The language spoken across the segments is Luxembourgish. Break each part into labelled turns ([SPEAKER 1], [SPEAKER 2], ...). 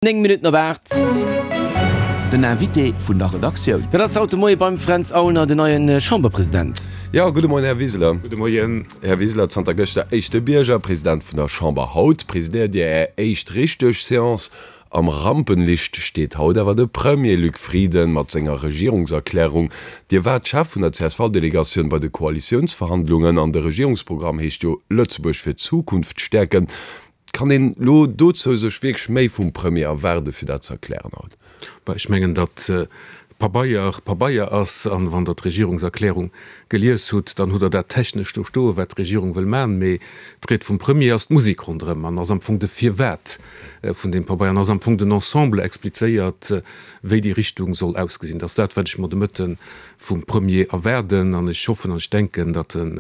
[SPEAKER 1] 9 Minutten op 8.
[SPEAKER 2] Den Invité vun der Redaktioun.
[SPEAKER 1] Dat ass haut de Moie beim Fränz Aulner, den neie Chamberpresident.
[SPEAKER 3] Jo, gudde Moien, Här Wiseler.
[SPEAKER 4] Gudde Moien.
[SPEAKER 3] Här Wiseler, zanter gëschter éischte Bierger, President vun der Chamber. Haut presidéiert Dir Är éischt richteg Seance. Am Rampenlicht steet haut awer de Premier Luc Frieden mat senger Regierungserklärung. Dir waart Chef vun der CSV-Delegatioun bei de Koalitiounsverhandlungen an de Regierungsprogramm heescht jo Lëtzebuerg fir d'Zukunft stäerken. Kann een elo dozou sech wierklech méi vum Premier erwaarden, fir dat ze erklären haut?
[SPEAKER 4] Bah, ech mengen, datt Pabeier Pabeier ass, an wann Der d'Regierungserklärung gelies hutt, dann hutt Der dat technesch do stoen, wat d'Regierung wëll maachen. Mee d'Ried vum Premier ass d'Musek ronderëm an ass am Fong de Firwat vun deem Pabeier an ass am Fong den Ensemble explizéiert, wéi déi Richtung soll ausgesinn. Dat ass dat, wat ech mer de Mëtte vum Premier erwaarden, an ech hoffen an ech denken, datt en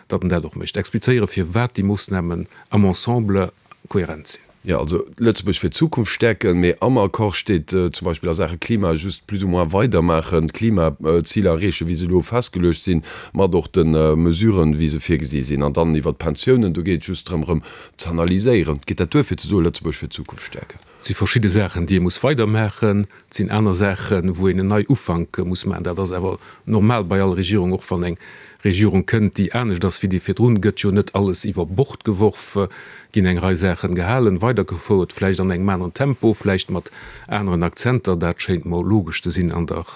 [SPEAKER 4] datt en dat och mécht, explizéieren, firwat déi Moossnamen am Ensemble kohärent sinn.
[SPEAKER 3] Jo, also Lëtzebuerg fir d'Zukunft stäerken, mee am Accord steet zum Beispill a Saache Klima just plus ou moins weidermaachen, d'Klimaziler erreechen, wéi se elo festgeluecht sinn, mat och de Mesuren, wéi se virgesi sinn. An dann iwwert d'Pensiounen, do geet et just drëm, erëm z'analyséieren. Geet dat duer, fir ze soen, Lëtzebuerg fir d'Zukunft stäerken?
[SPEAKER 4] Et si verschidde Saachen, déi ee muss weidermaachen. Et sinn aner Saachen, wou een en Neiufank muss maachen. Dat ass awer normal bei all Regierung. Och wann eng Regierung kënnt, déi anescht ass wéi déi virdrun, gëtt jo net alles iwwer Bord geworf, ginn eng Rei Saachen gehalen, weidergefouert, vläicht an engem aneren Tempo, vläicht mat aneren Akzenter. Dat schéint mer logesch ze sinn an der,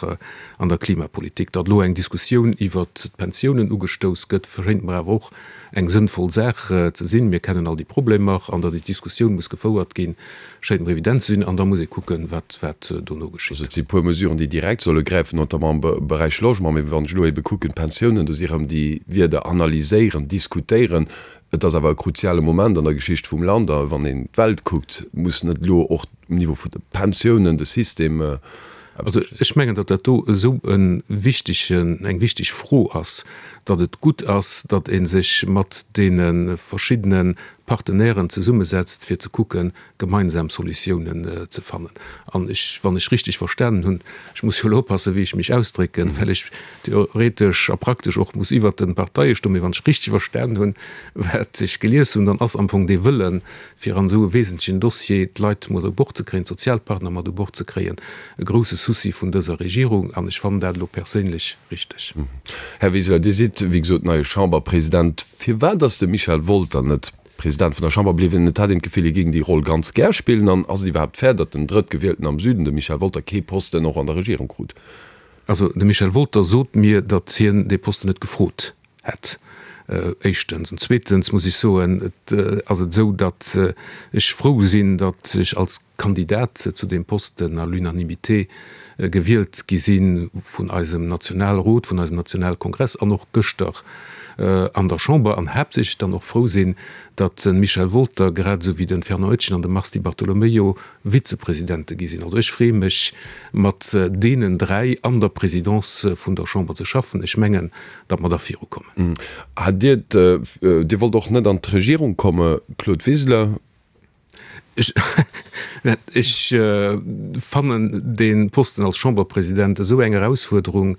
[SPEAKER 4] an der Klimapolitik. Datt elo eng Diskussioun iwwert d'Pensiounen ugestouss gëtt, schéint mer awer och eng sënnvoll Saach ze sinn. Mir kennen all déi Problemer an datt déi Diskussioun muss gefouert ginn, schéint mer evident ze sinn. An da muss ee kucken, wat wat dono geschitt.
[SPEAKER 3] Also et si puer Mesuren, déi direkt solle gräifen, notamment am Beräich Logement. Mee wann ech elo ebe kucken, d'Pensiounen, do si erëm déi Wierder analyséieren, diskutéieren. Et ass awer e kruziale Moment an der Geschicht vum Land. A wann een d'Welt kuckt, muss net elo och um Niveau vun de Pensiounen de System
[SPEAKER 4] Also ech mengen, datt dat do esou e wichtegen, eng wichteg Fro ass, datt et gutt ass, datt ee sech mat deene verschiddene Partenairen zesummesetzt, fir ze kucken, gemeinsam Solutiounen ze fannen. An ech, wann ech richtig verstanen hunn, ech muss jo elo oppassen, wéi ech mech ausdrécken, well ech theoretesch a praktesch och muss iwwert de Parteie stoen, mee wann ech richtig verstanen hunn, wat ech gelies hunn, dann ass am Fong dee Wëllen, fir an esou e wesentlechen Dossier d'Leit mat u Bord ze kréien, d'Sozialpartner mat u Bord ze kréien, e grouse Souci vun dëser Regierung. An ech fannen dat elo perséinlech richteg.
[SPEAKER 3] Här Wiseler, Dir sidd, wéi gesot, neie Chamberpresident. Firwat ass de Michel Wolter net President vun der Chamber bliwwen? Et hat een d'Gefill, hie géing déi Roll ganz gär spillen. An ass et iwwerhaapt fair, datt den Drëttgewielten am Süden, de Michel Wolter, kee Posten och an der Regierung krut?
[SPEAKER 4] Also de Michel Wolter sot mir, datt hien dee Posten net gefrot hätt, éischtens. An zweetens muss ech soen, et ass et esou, datt ech frou sinn, datt ech als Kandidat zu deem Posten à l'unanimité gewielt gi si vun eisem Nationalrot, vun eisem Nationalkongress an och gëschter an der Chamber. An haaptsächlech dann och frou sinn, datt de Michel Wolter grad esou wéi de Fernand Etgen an de Mars Di Bartolomeo Vizepresidente gi sinn. Also ech freeë mech, mat deenen 3 an der Présidence vun der Chamber ze schaffen. Ech mengen, datt mer da virukommen.
[SPEAKER 3] Hat Dir, Dir wollt och net an d'Regierung komme, Claude Wiseler?
[SPEAKER 4] Ech fannen dee Posten als Chamberpresident esou eng Erausfuerderung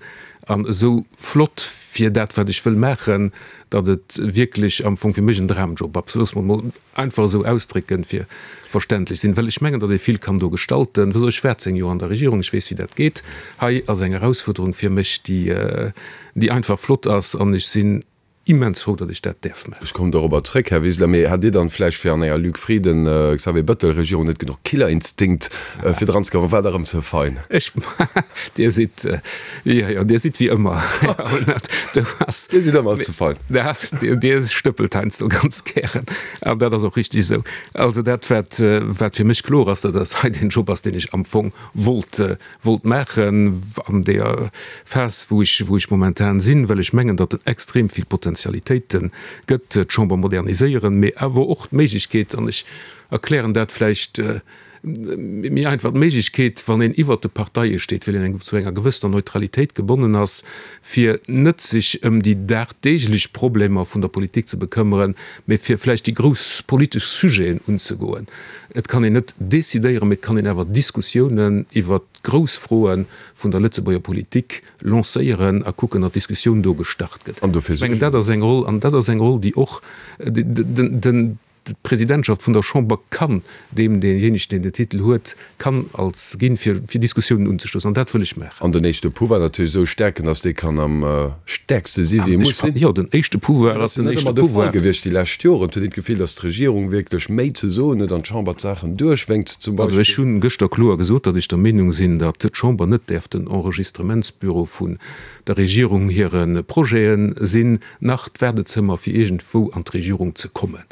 [SPEAKER 4] an esou flott fir dat, wat ech wëll maachen, datt et wierklech am Fong fir mech en Dramjob ass. Loosse mer emol einfach esou ausdrécken, fir verständlech sinn, well ech mengen, datt ee vill kann do gestalten. Wësst Der, ech war 10 Joer an der Regierung, ech weess, wéi dat geet. Hei ass eng Erausfuerderung fir mech, déi, déi einfach flott ass, an ech sinn immens frou, datt ech dat däerf maachen.
[SPEAKER 3] Ech kommen dorobber zréck, Här Wiseler. Mee hat Dir dann vläicht fir an enger Luc Frieden, Xavier Bettel Regierung net genuch Killerinstinkt, fir dran ze kommen? War der erëm ze fein?
[SPEAKER 4] Ech, Dir sidd, jo, jo, Dir sidd wéi ëmmer, Här Aulnert.
[SPEAKER 3] Do ass. Dir sidd ëmmer ze fein.
[SPEAKER 4] Dir stëppelt heiansdo ganz gären. An dat ass och richtig esou. Also dat, wat, wat fir mech kloer ass, dat ass hei deen Job ass, deen ech am Fong wollt, wollt maachen an deeër Phas, wou ech, wou ech momentan sinn, well ech mengen, datt et extrem vill Potentialitéite gëtt, d'Chamber moderniséieren, mee awer och d'Méiglechkeet, an ech erklären dat vläicht, méi einfach d'Méiglechkeet, wann een iwwert de Parteie steet, well een eng zu enger gewëssener Neutralitéit gebonnen ass, fir net sech ëm déi dagdeeglech Problemer vun der Politik ze bekëmmeren, mee fir vläicht déi grouss politesch Sujeten unzegoen. Et kann een net decidéieren, mee et kann een awer Diskussiounen iwwert d'grouss Froe vun der Lëtzebuerger Politik lancéieren a kucken, datt d'Diskussioun do gestart gëtt.
[SPEAKER 3] An dofir
[SPEAKER 4] Ech mengen, dat ass eng Roll, an dat ass eng Roll, déi och den. D'Presidentschaft vun der Chamber kann deem, deejéinegen, deen den Titel huet, kann als ginn, fir fir Diskussiounen unzestoussen. An dat wëll ech maachen.
[SPEAKER 3] An den éischte Pouvoir natierlech esou stäerken, datt dee kann am stäerkste si wéi e muss sinn.
[SPEAKER 4] Jo, den éischte Pouvoir ass den éischte Pouvoir. Dat ass jo net ëmmer de Fall
[SPEAKER 3] gewiescht déi lescht Joren. Et huet een d'Gefill, datt d'Regierung wierklech méi ze soen huet an d'Chamber d'Saachen duerchwénkt zum
[SPEAKER 4] Beispill. Also ech hu gëschter kloer gesot, datt ech der Meenung sinn, datt d'Chamber net däerf den Enregistrementsbüro vun der Regierung hire Projete sinn. Nach d'Waardezëmmer fir iergendwou an d'Regierung ze kommen.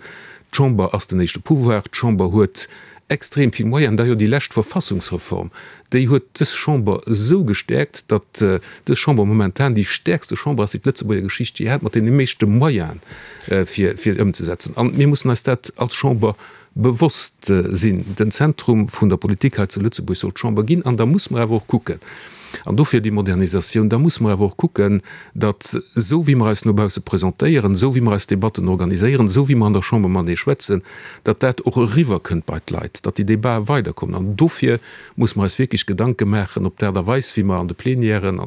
[SPEAKER 4] D'Chamber ass den éischte Pouvoir. D'Chamber huet extrem vill Moyenen. D'ailleurs, déi lescht Verfassungsreform, déi huet dës Chamber esou gestäerkt, datt dës Chamber momentan déi stäerkste Chamber ass, déi d'Lëtzebuerger Geschicht jee hat, mat deene meeschte Moyenen, fir fir ëmzesetzen. An mir mussen eis dat als Chamber bewosst sinn. Den Zentrum vun der Politik hei zu Lëtzebuerg soll d'Chamber ginn. An da muss mer awer och kucken, an dofir déi Modernisatioun, da muss mer awer och kucken, datt esou wéi mer eis no bausse presentéieren, esou wéi mer eis Debatten organiséieren, esou wéi mer an der Chamber matenee schwätzen, datt dat och eriwwerkënnt bei d'Leit, datt déi Debatë weiderkommen. An dofir muss mer eis wierklech Gedanke maachen, ob d'Aart a Weis, wéi mer an de Plenièren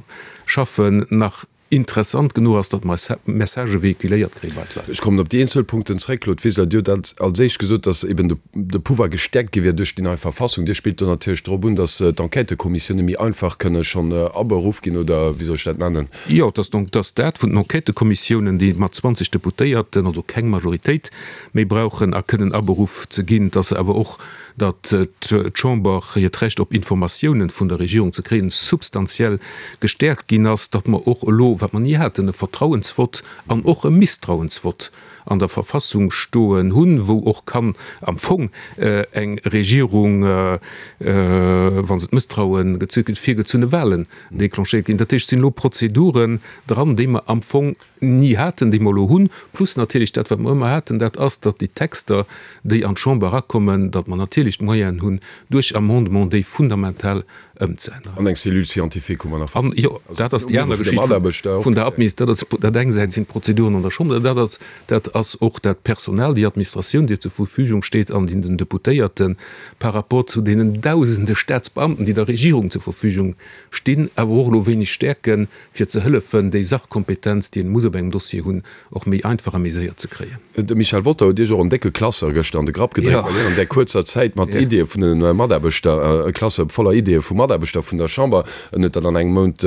[SPEAKER 4] schaffen, nach interessant genuch ass, datt mer eis Messagë véhiculéiert kréie bei d'Leit.
[SPEAKER 3] Ech kommen op déi eenzel Punkten zréck. Claude Wiseler, Dir hutt als éischt gesot, datt eben de Pouvoir gestäerkt gi wier duerch déi nei Verfassung. Dir spillt do natierlech drop un, datt d'Enquêtëkommissioune méi einfach kënne schonn aberuff ginn, oder wéi soll ech dat nennen?
[SPEAKER 4] Jo, et ass donc, datt dat vun den Enquêtëkommissiounen, déi mat 20 Deputéierten, also keng Majoritéit méi brauchen a kënnen aberuff ze ginn, datt se awer och datt d'Chamber hiert Recht op Informatiounen vun der Regierung ze kréien substantiell gestäerkt ginn ass, datt mer och elo, wat mer ni haten, e Vertrauensvott an och e Misstrauensvott an der Verfassung stoen hunn, wou och kann am Fong eng Regierung, wa se d'Mësstraue gezu kritt, virgezunne Wahlen déclenchéiert ginn. Dat heescht, et sinn elo Prozeduren dran, déi mer am Fong ni haten, déi mer elo hunn, plus natierlech dat, wat mer ëmmer haten, dat ass, datt déi Texter, déi an d'Chamber erakommen, datt mer natierlech d'Moyenen hunn, duerch Amendement déi fundamental ëmzeänneren.
[SPEAKER 3] An eng Cellule scientifique hu mer nach.
[SPEAKER 4] An, jo, dat ass déi aner Geschicht vun der Admis, dat ass dat eng Säit sinn d'Prozeduren an der Chamber, dat ass, dat ass och dat Personal, déi Administratioun, déi zur Verfügung steet an déi den Deputéierte par rapport zu deenen Dausende Staatsbeamten, déi der Regierung zur Verfügung stinn, awer och elo wéineg stäerken, fir ze hëllefen, déi Sachkompetenz, déi een muss op engem Dossier hunn, och méi einfach a méi séier ze kréien.
[SPEAKER 3] De Michel Wolter huet Iech och en décke Classeur gëschter an de Grapp gedréckt, well hien an där kuerzer Zäit mat Ideeë vun de Mataarbechter, e Classeur voller Ideeë vu Mataarbechter vun der Chamber, en huet dat an engem Mount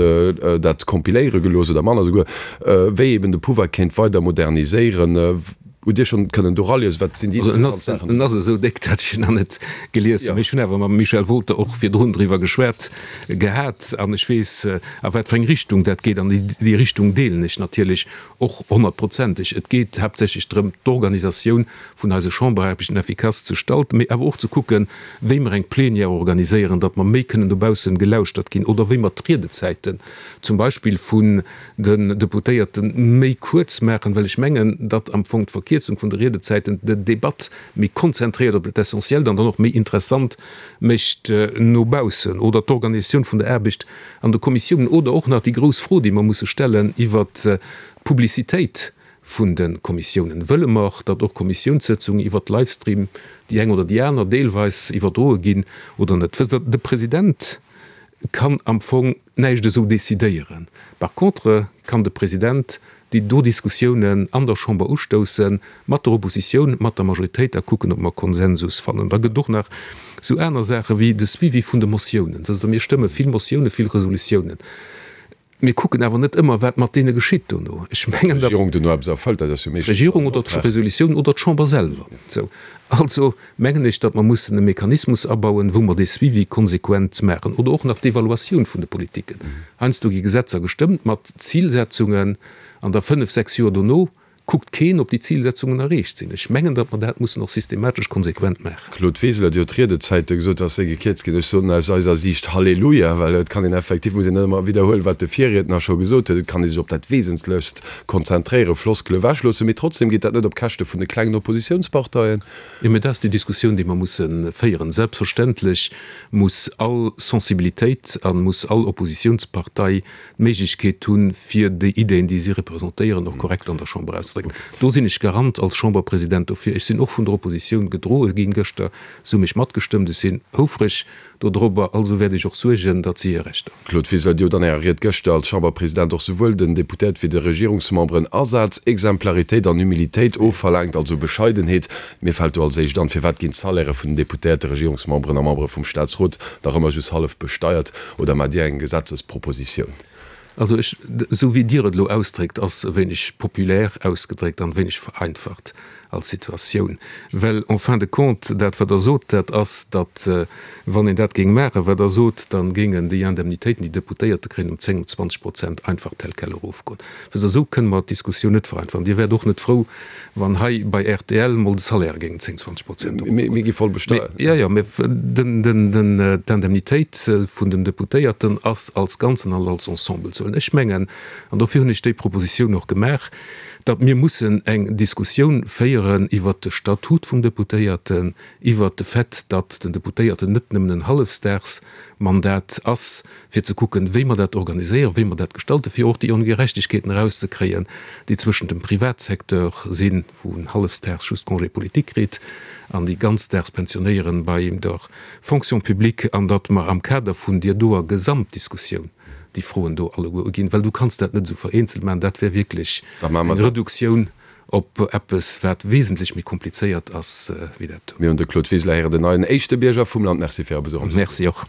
[SPEAKER 3] dat kompiléiere gelooss oder manner esouguer, wéi eben de Pouvoir kéint weider moderniséieren. Hutt Dir schonn kënnen do raliesen, wat sinn déi
[SPEAKER 4] interessant Saachen? En ass esou déck, datt ech en nach net gelies hunn. Mee ech hunn awer mam Michel Wolter och virdrun driwwer geschwat gehat an ech weess, a wat fir eng Richtung dat geet. An déi Richtung deelen ech natierlech och honnertprozenteg. Et geet haaptsächlech drëm, d'Organisatioun vun eise Chamberaarbechten effikass ze stalten, mee awer och ze kucken, wéi mer eng Plenière organiséieren, datt mer méi kënnen dobaussen gelauschtert ginn oder wéi mer d'Riedezäiten zum Beispill vun den Deputéierte méi kuerz maachen, well ech mengen, datt am Fong d'Verkierzung vun de Riedezäiten d'Debatt méi konzentréiert op dat Essentiellt an dann och méi interessant mécht no baussen. Oder d'Organisatioun vun der Aarbecht an de Kommissiounen. Oder och nach déi grouss Fro, déi mer musse stellen iwwert d'Publicitéit vun de Kommissiounen. Wëlle mer, datt och Kommissiounssëtzungen iwwert Livestream, déi eng oder déi aner, deelweis iwwerdroe ginn oder net? Wësst Der, de President kann am Fong näischt esou decidéieren. Par contre kann de President déi do Diskussiounen an der Chamber ustousse mat der Oppositioun, mat der Majoritéit a kucken, ob mer Konsensus fannen. Da gëtt et och nach esou aner Saache wéi de Suivi vun de Motiounen. Wësst Der, mir stëmme vill Motiounen, vill Resolutiounen. Mir kucken awer net ëmmer, wat mat deene geschitt dono. Ech mengen, datt.
[SPEAKER 3] D'Regierung dono eppes erfëllt, dat ass jo
[SPEAKER 4] meeschtens D'Regierung oder d'Resolutioun oder d'Chamber selwer. Sou. Also mengen ech, datt mer mussen e Mechanismus abauen, wou mer dee Suivi konsequent maachen. Oder och nach d'Evaluatioun vun de Politiken. Heiansdo gi Gesetzer gestëmmt mat Zilsetzungen an da fënnf, sechs Joer dono kuckt keen, ob déi Zilsetzungen erreecht sinn. Ech mengen, datt mer dat mussen och systematesch konsequent maachen.
[SPEAKER 3] Claude Wiseler, Dir hutt d'Riedezäite gesot, datt se gekierzt ginn. Ech soen aus eiser Siicht Halleluja, well et kann een effektiv, muss een net ëmmer widderhuelen, wat de Virriedner scho gesot huet, et kann ee sech op dat Wesentlechst konzentréieren, Floskele ewechloossen. Mee trotzdem geet dat net op Käschte vun de klengen Oppositiounsparteien.
[SPEAKER 4] Jo, mä dat ass déi Diskussioun, déi mer musse féieren. Selbstverständlech muss all Sensibilitéit a muss all Oppositiounspartei d'Méiglechkeet hunn, fir déi Ideen, déi si representéieren, och korrekt an der Chamber auszedrécken. auszedrécken. Do sinn ech Garant als Chamberpresident dofir. Ech sinn och vun der Oppositioun gedroe ginn gëschter. Se hu mech matgestëmmt. Ech sinn houfreg dodrobber. Also wäert ech och suergen, datt si hir Rechter.
[SPEAKER 3] Claude Wiseler, Dir hutt an Ärer Ried gëschter als Chamberpresident och souwuel den Deputéierte wéi de Regierungsmemberen Asaz, Exemplaritéit an Humilitéit ofverlaangt, also Bescheidenheet. Mir fält do als éischt an, Firwat ginn d'Salairë vun den Deputéierte, Regierungsmemberen a Membere vum Staatsrot nach ëmmer just hallef besteiert? Oder maacht Dir eng Gesetzespropositioun?
[SPEAKER 4] Also ech, esou wéi Dir et elo ausdréckt, ass e wéineg populär ausgedréckt an e wéineg vereinfacht als Situatioun. Well en fin de compte, dat wat Der sot, dat ass, datt wann een dat géing maachen, wat Der sot, da géingen déi Indemnitéiten, déi Deputéierte kréien, ëm 10, ëm 20 Prozent einfach tel quel erofgoen. Wësst Der, esou kënne mer d'Diskussioun net vereinfachen. Dir wäert och net frou, wann hei bei rtl mol de Salaire géingen 10, 20 Prozent
[SPEAKER 3] erofgoen. Mir gi voll besteiert.
[SPEAKER 4] Jo, jo, mä d'Indemnitéit vun den Deputéierten ass als Ganzen an als Ensemble ze huelen. Ech mengen, an dofir hunn ech déi Propositioun och gemaach, datt mir mussen eng Diskussioun féieren iwwert de Statut vum Deputéierten, iwwert de Fait, datt den Deputéierten net nëmmen en Hallefsdagsmandat ass, fir ze kucken, wéi mer dat organiséieren, wéi mer dat gestalten, fir och déi Ongerechtegkeeten erauszekréien, déi zwëschent dem Privatsecteur sinn, wou en hallefsdaags just Congé politique kritt, an déi ganzdaags Pensionéieren bei der Fonction publique, an datt mer am Kader vun deer doer Gesamtdiskussioun déi Froen do alleguer uginn, well du kanns dat net esou vereenzelt maachen, dat wär wierklech eng Reduktioun op eppes, wat wesentlech méi komplizéiert ass wéi dat do.
[SPEAKER 3] Mir hunn de Claude Wiseler héieren, den neien éischte Bierger vum Land. Merci fir Är Besuch am Studio.
[SPEAKER 4] Merci och.